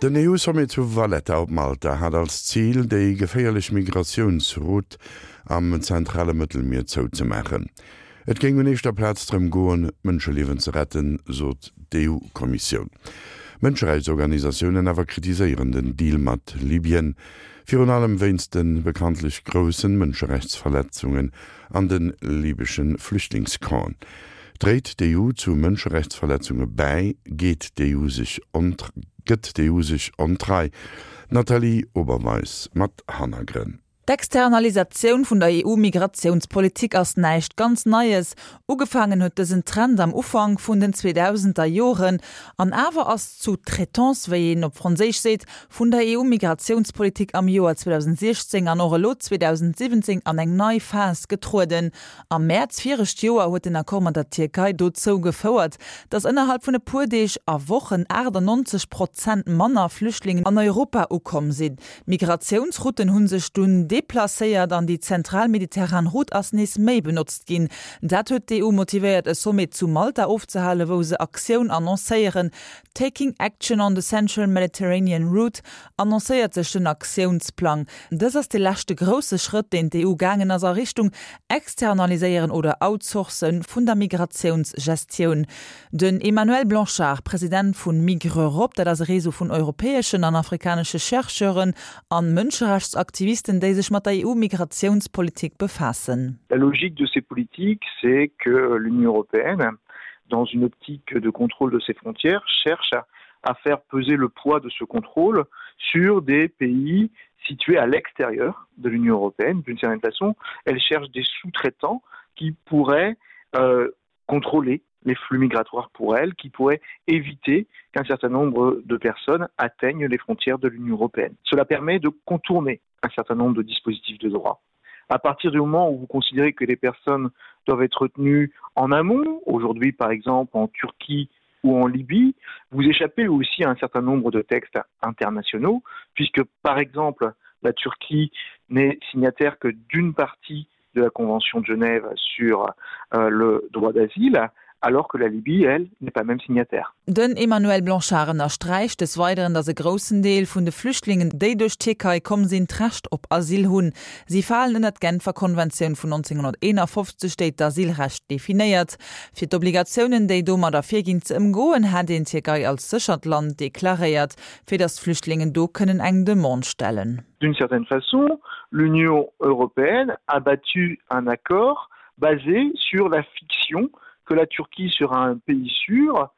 Den EU-Sommet zu Valletta op Malta hat als Zil, déi geféierlech Migratiounsroute am zentrale Mëttelmier zouzemaachen. Et géing un éischter Plaz drëm goen, Mënscheliewen ze retten, sot d'EU-Kommissioun. Mënscherechtsorganisatiounen awer kritiséieren den Deal mat Libyen, virun allem wéinst de bekanntlech groussen Mënscherechtsverletzungen an de libysche Flüchtlingscampen. Dréit d'EU zu Mënscherechtsverletzunge bäi? Geet d'EU sech gëtt d'EU sech ontrei? D'Nathalie Oberweis mat Hannergrënn. D'Externalisatioun vun der EU-Migratiounspolitik ass näischt ganz Neies. Ugefaangen huet dësen Trend am Ufank vun den 2000er Joren. An awer ass d'Sous-traitance, wéi een op Franséisch seet, vun der EU-Migratiounspolitik am Joer 2016 an och elo 2017 an eng nei Phas getrueden. Am Mäerz viregt Joer huet den Accord mat der Tierkei dozou gefouert, datt ënnerhalb vun e puer Deeg a Wochen 98 Prozent manner Flüchtlingen an Europa ukomm sinn. D'Migratiounsrouten hu sech dunn deplacéiert an déi zentral mediterran Route ass nees méi benotzt ginn. Dat huet d'EU motivéiert e Sommet zu Malta ofzehalen, wou se Aktioun annoncéieren. Taking Action on the Central Mediterranean Route annoncéiert sech den Aktiounsplang. Dës ass de leschte grousse Schrëtt, deen d'EU gaangen ass a Richtung Externaliséieren oder Outsourcen vun der Migratiounsgestioun. Den Emmanuel Blanchard, President vu Migreurop, dat ass e Réseau vun europäeschen an afrikanesche Chercheuren an Mënscherechtsaktivisten, déi sech mat der EU-Migratiounspolitik befaassen. La logique de ces politiques, c'est que l'Union européenne, dans une optique de contrôle de ses frontières, cherche à faire peser le poids de ce contrôle sur des pays situés à l'extérieur de l'Union européenne. D'une certaine façon, elle cherche des sous-traitants qui pourraient euh, contrôler les flux migratoires pour elle, qui pourraient éviter qu'un certain nombre de personnes atteignent les frontières de l'Union européenne. Cela permet de contourner un certain nombre de dispositifs de droit. À partir du moment où vous considérez que les personnes doivent être retenues en amont, aujourd'hui par exemple en Turquie ou en Libye, vous échappez aussi à un certain nombre de textes internationaux, puisque par exemple la Turquie n'est signataire que d'une partie de la Convention de Genève sur euh, le droit d'asile, alors que la Libye, elle, n'est pas même signataire. Den Emmanuel Blanchard ënnersträicht des Weideren, datt e groussen Deel vun de Flüchtlingen, déi duerch d'Tierkei komm sinn, d'Recht op Asyl hunn. Si falen ënner d'Genfer Konventioun vun 1951, déi d'Asylrecht definéiert. Fir d'Obligatiounen, déi domat ervirginn, ze ëmgoen, hätt een d'Tierkei als séchert Land deklaréiert, fir datt d'Flüchtlingen do kënnen eng Demande stellen. D'une certaine façon, l'Union européenne a battu un accord basé sur la fiction que la Turquie sera un pays sûr,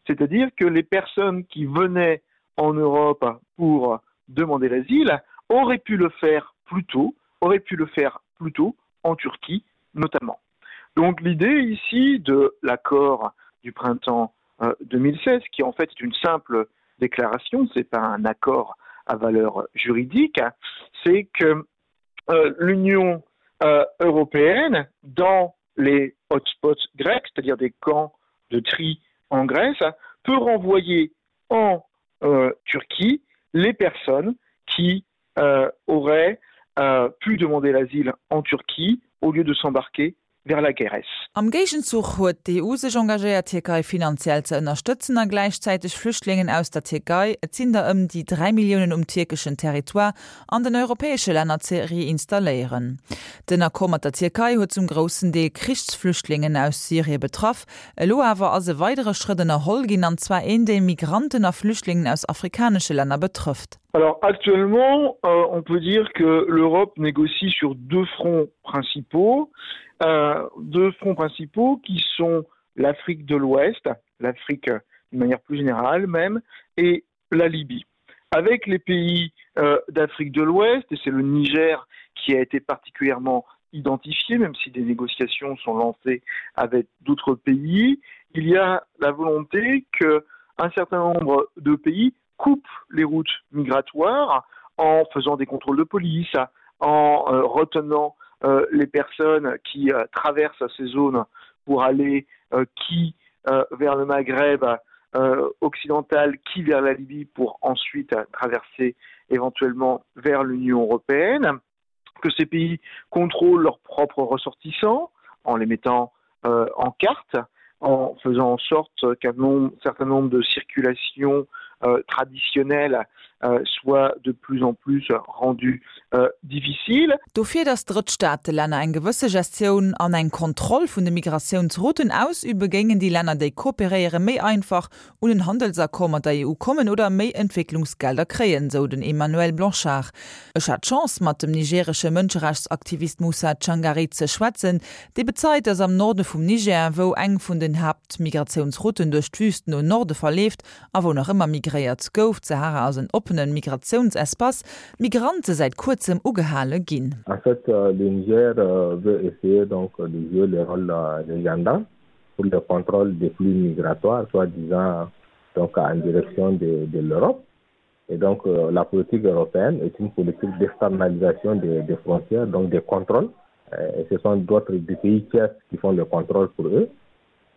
c'est-à-dire que les personnes qui venaient en Europe pour demander l'asile auraient pu le faire plus tôt, auraient pu le faire plus tôt en Turquie notamment. Donc l'idée ici de l'accord du printemps 2016, euh, qui en fait est une simple déclaration, ce n'est pas un accord à valeur juridique, c'est que euh, l'Union euh, européenne, dans les hotspots grecs, c'est-à-dire des camps de tri en Grèce, peut renvoyer en euh, Turquie les personnes qui euh, auraient euh, pu demander l'asile en Turquie au lieu de s'embarquer vers la Grèce. Am Géigenzuch huet d'EU sech engagéiert, d'Tierkei finanziell ze ënnerstëtzen a gläichzäiteg Flüchtlingen aus der Tierkei, et sinn der ëm déi 3 Milliounen um tierkeschen Territoire, an den europäesche Länner ze reinstalléieren. Den Accord mat der Tierkei huet zum groussen Deel Krichsflüchtlingen aus Syrie betraff. Elo awer ass e weidere Schrëtt ënnerholl ginn, an zwar een, dee Migranten a Flüchtlingen aus afrikanesche Länner betrëfft. Alors actuellement, euh, on peut dire que l'Europe négocie sur deux fronts principaux, euh, deux fronts principaux qui sont l'Afrique de l'Ouest, l'Afrique d'une manière plus générale même, et la Libye. Avec les pays euh, d'Afrique de l'Ouest, et c'est le Niger qui a été particulièrement identifié, même si des négociations sont lancées avec d'autres pays, il y a la volonté qu'un certain nombre de pays coupent les routes migratoires en faisant des contrôles de police, en euh, retenant euh, les personnes qui euh, traversent ces zones pour aller euh, qui euh, vers le Maghreb euh, occidental, qui vers la Libye pour ensuite euh, traverser éventuellement vers l'Union européenne, que ces pays contrôlent leurs propres ressortissants en les mettant euh, en carte, en faisant en sorte qu'un certain nombre de circulations. euh, traditionnelles euh, soient de plus en plus rendues euh, difficiles. Dofir, datt Drëttstaatelänner eng gewësse Gestioun an eng Kontroll vun de Migratiounsrouten ausüben, géingen déi Länner, déi kooperéieren, méi einfach un en Handelsaccord mat der EU kommen oder méi Entwécklungsgelder kréien, sou den Emmanuel Blanchard. Ech hat d'Chance, mat dem nigeresche Mënscherechtsaktivist Moussa Tchangari ze schwätzen, dee bezeit, datt am Norde vum Niger, wou eng vun den Haaptmigratiounsrouten duerch d'Wüst no Norde verleeft a wou nach ëmmer migréiert gouf, d'Sahara ass en oppene Migratiounsespace, d'Migrante säit kuerzem ugehale ginn. En fait, le Niger veut essayer donc de jouer le rôle de gendarme pour le contrôle des flux migratoires, soi-disant donc en direction de, de l'Europe. Et donc euh, la politique européenne est une politique d'externalisation des, des frontières, donc des contrôles. Euh, et ce sont d'autres pays tiers qui font le contrôle pour eux.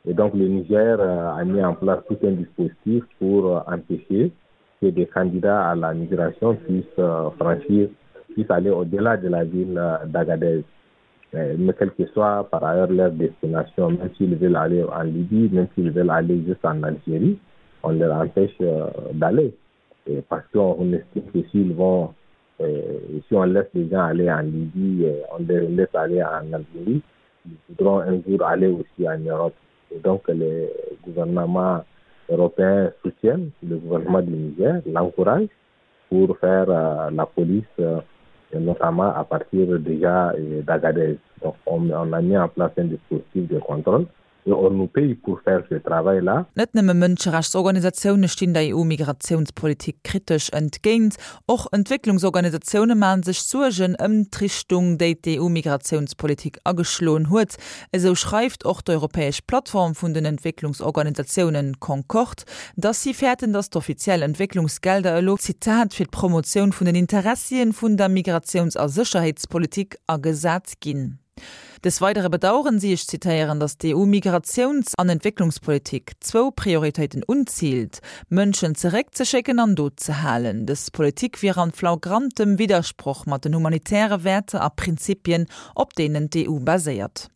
Et donc le Niger euh, a mis en place tout un dispositif pour euh, empêcher que des candidats à la migration puissent euh, franchir, puissent aller au-delà de la ville d'Agadez. Mais quelle que soit par ailleurs leur destination, même s'ils veulent aller en Libye, même s'ils veulent aller juste en Algérie, on leur empêche d'aller. Parce qu'on estime que s'ils vont, si on laisse les gens aller en Libye, on les laisse aller en Algérie, ils voudront un jour aller aussi en Europe. Et donc les gouvernements européens soutiennent le gouvernement du Niger, l'encouragent pour faire euh, la police, euh, notamment à partir déjà euh, d'Agadez. Donc on, on a mis en place un dispositif de contrôle et on nous paye pour faire ce travail-là. Net nëmme Mënscherechtsorganisatioune stinn der EU-Migratiounspolitik kritesch entgéint. Och Entwécklungsorganisatioune maache sech Suergen ëm d'Richtung, déi d'EU-Migratiounspolitik ageschloen huet. Esou schreift och d'europäesch Plattform vun den Entwécklungsorganisatiounen Concord, dass si fäerten, dass d'offiziell Entwécklungsgelder elo, Zitat, fir d'Promotioun vun den Interessien vun der Migratiouns a Sécherheetspolitik agesat ginn. Des Weidere bedaueren si, ech zitéieren, datt d'EU-Migratiouns an Entwécklungspolitik zwou Prioritéiten unziilt, Mënschen zeréckzeschécken an do ze halen. Dës Politik wier an flagrantem Widdersproch mat den humanitäre Wäerter a Prinzipien, op deenen d'EU baséiert.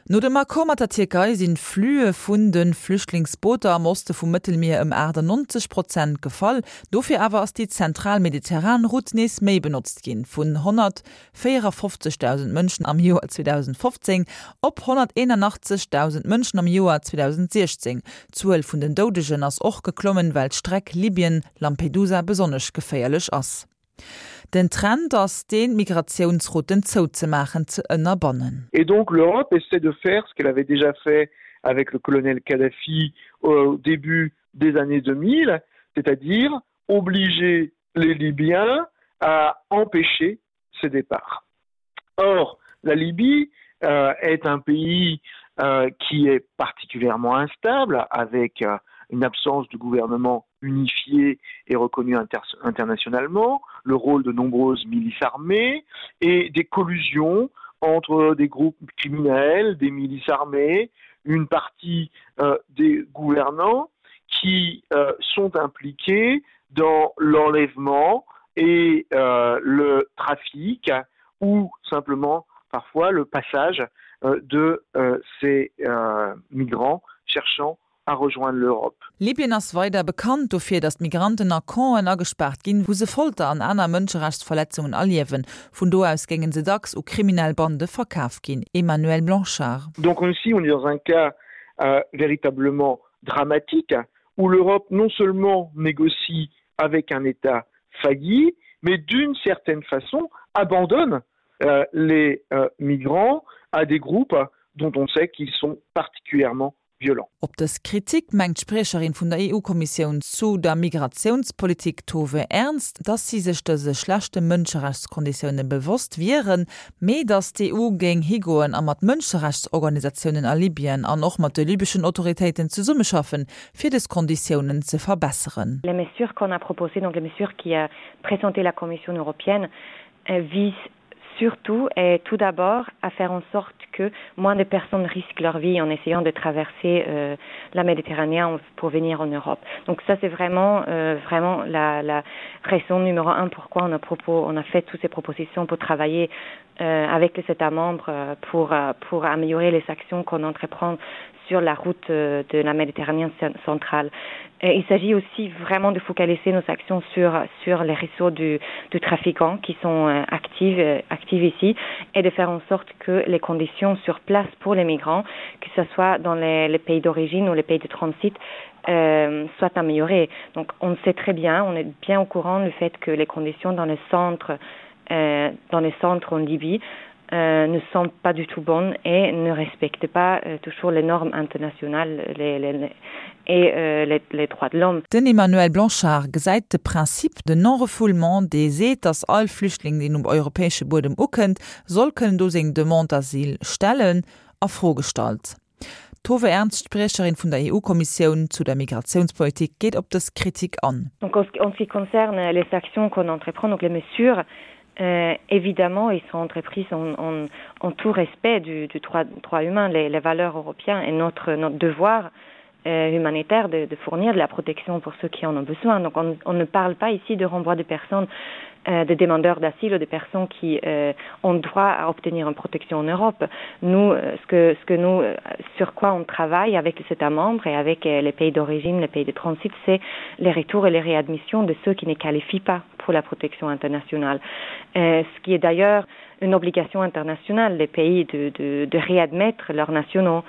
No dem Accord mat der Tierkei sinn d'Flüe vun de Flüchtlingsbooter am Oste vum Mëttelmier ëm 98 Prozent gefall. Dofir awer ass déi zentral mediterran Route nees méi benotzt ginn, vun 154.000 Mënschen am Joer 2015 op 181.000 Mënschen am Joer 2016. D'Zuel vun den Doudegen ass och geklommen, well d'Streck Libyen-Lampedusa besonnesch geféierlech ass. Den Trend ass deen, d'Migratiounsrouten zouzemaachen, ze ënnerbannen. Et donc l'Europe essaie de faire ce qu'elle avait déjà fait avec le colonel Kadhafi au début des années 2000, c'est-à-dire obliger les Libyens à empêcher ces départs. Or, la Libye euh, est un pays euh, qui est particulièrement instable avec euh, une absence de gouvernement unifié et reconnu inter internationalement, le rôle de nombreuses milices armées et des collusions entre des groupes criminels, des milices armées, une partie euh, des gouvernants qui euh, sont impliqués dans l'enlèvement et euh, le trafic ou simplement parfois le passage euh, de euh, ces euh, migrants cherchant à rejoindre l'Europe. Libyen ass weider bekannt dofir, datt d'Migranten a Campen agespaart ginn, wou se Folter an aner Mënscherechtsverletzungen erliewen. Vun do aus géinge se dacks u kriminell Bande verkaf ginn. Emmanuel Blanchard. Donc ici on est dans un cas euh, véritablement dramatique où l'Europe non seulement négocie avec un État failli, mais d'une certaine façon abandonne euh, les euh, migrants à des groupes dont on sait qu'ils sont particulièrement violents. Op dës Kritik mengt d'Spriecherin vun der EU-Kommissioun zu der Migratiounspolitik Tove Ernst, datt si sech dëse schlechte Mënscherechtskonditioune bewosst wieren, mee datt d'EU géing higoen a mat Mënscherechtsorganisatiounen a Libyen an och mat de libeschen Autoritéiten zesummeschaffen, fir dës Konditiounen ze verbesseren. Les mesures qu'on a proposées, donc les mesures qui a présenté la Commission européenne, visent surtout et tout d'abord à faire en sorte que moins de personnes risquent leur vie en essayant de traverser euh, la Méditerranée pour venir en Europe. Donc ça c'est vraiment euh, vraiment la, la raison numéro un pourquoi on a propos on a fait toutes ces propositions pour travailler. euh, avec les États membres euh, pour, euh, pour améliorer les actions qu'on entreprend sur la route euh, de la Méditerranée centrale. Et il s'agit aussi vraiment de focaliser nos actions sur, sur les réseaux du, du trafiquant qui sont euh, actifs, euh, actifs ici et de faire en sorte que les conditions sur place pour les migrants, que ce soit dans les, les pays d'origine ou les pays de transit, euh, soient améliorées. Donc on sait très bien, on est bien au courant du fait que les conditions dans les centres, euh, dans les centres en Libye euh, ne sont pas du tout bonnes et ne respectent pas euh, toujours les normes internationales les, les, les, et euh, les, les droits de l'homme. Den Emmanuel Blanchard gesäit de Principe de non-refoulement, dee seet, datt all Flüchtling, deen um europäesche Buedem ukënnt, soll kënnen do seng Demande d'asile stellen, a Fro gestallt. D'Tove Ernst, Spriecherin vun der EU-Kommissioun zu der Migratiounspolitik, geet op dës Kritik an. Donc en ce qui concerne les actions qu'on entreprend, donc les mesures, euh, évidemment, ils sont entreprises en, en, en tout respect du, du droit, droit humain, les, les valeurs européennes et notre, notre devoir euh, humanitaire de, de fournir de la protection pour ceux qui en ont besoin. Donc on, on ne parle pas ici de renvoi de personnes euh, de demandeurs d'asile ou des personnes qui euh, ont droit à obtenir une protection en Europe. Nous, euh, ce que, ce que nous, euh, sur quoi on travaille avec les États membres et avec euh, les pays d'origine, les pays de transit, c'est les retours et les réadmissions de ceux qui ne qualifient pas pour la protection internationale. Euh, ce qui est d'ailleurs une obligation internationale des pays de, de, de réadmettre leurs nationaux.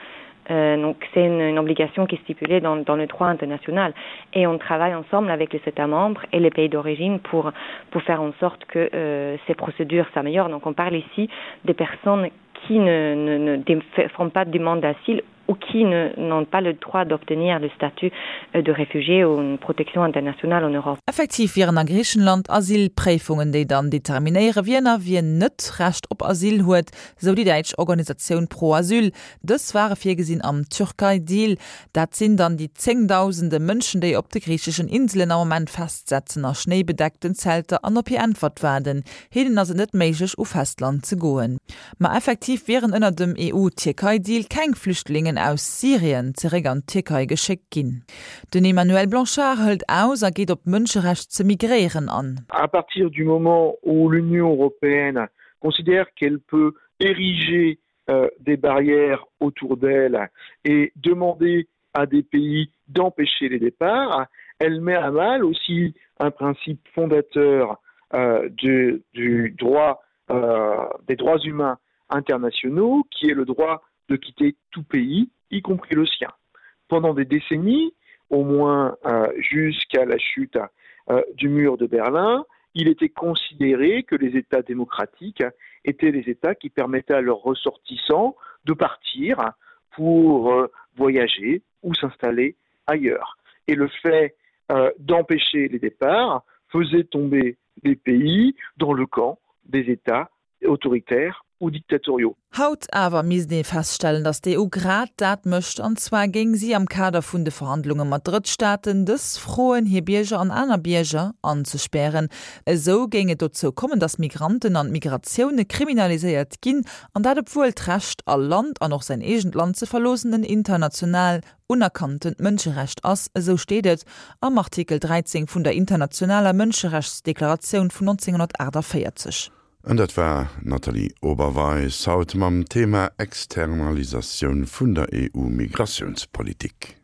Euh, donc c'est une, une obligation qui est stipulée dans, dans le droit international et on travaille ensemble avec les États membres et les pays d'origine pour, pour faire en sorte que euh, ces procédures s'améliorent. Donc on parle ici des personnes qui ne, ne, ne font pas de demande d'asile ou qui n'ont pas le droit d'obtenir le statut euh, de réfugié ou une protection internationale en Europe. Effektiv wieren a Griichenland Asylpréifungen, déi dann determinéiere wien a wien net Recht op Asyl huet, sou déi däitsch Organisatioun Pro Asyl. Dës ware virgesinn am Türkei-Deal. Dat sinn dann déi zéngdausende Mënschen, déi op de griicheschen Inselen am Moment festsetzen, a schnéibedeckten Zelter an op hir Äntwert waarden. Hinnen ass et net méiglech, u Festland ze goen. Ma effektiv wieren ënner dem EU-Tierkei-Deal keng Flüchtlingen aus Syrien zeréck an d'Tierkei geschéckt ginn. Den Emmanuel Blanchard hëlt aus a geet op d'Mënscherecht ze migréieren an. À partir du moment où l'Union européenne considère qu'elle peut ériger euh, des barrières autour d'elle et demander à des pays d'empêcher les départs, elle met à mal aussi un principe fondateur euh, du, du droit euh, des droits humains internationaux qui est le droit de quitter tout pays, y compris le sien. Pendant des décennies, au moins euh, jusqu'à la chute euh, du mur de Berlin, il était considéré que les États démocratiques étaient les États qui permettaient à leurs ressortissants de partir pour euh, voyager ou s'installer ailleurs. Et le fait euh, d'empêcher les départs faisait tomber les pays dans le camp des États autoritaires ou dictatoriaux. Haut awer misst ee feststellen, datt d'EU grad dat mécht, an zwar géing si am Kader vun de Verhandlunge mat Drëttstaaten dës froen, hir Bierger an aner Bierger anzespären. Esou géing et dozou kommen, datt Migranten an Migratioune kriminaliséiert ginn, an dat obwuel d'Recht, all Land an och säin eegent Land ze verloossen, en international unerkanntent Mënscherecht ass, esou steet et am Artikel 13 vun der internationaler Mënscherechtsdeklaratioun vun 1948. An dat war d'Nathalie Oberweis haut mam Thema Externalisatioun vun der EU-Migratiounspolitik.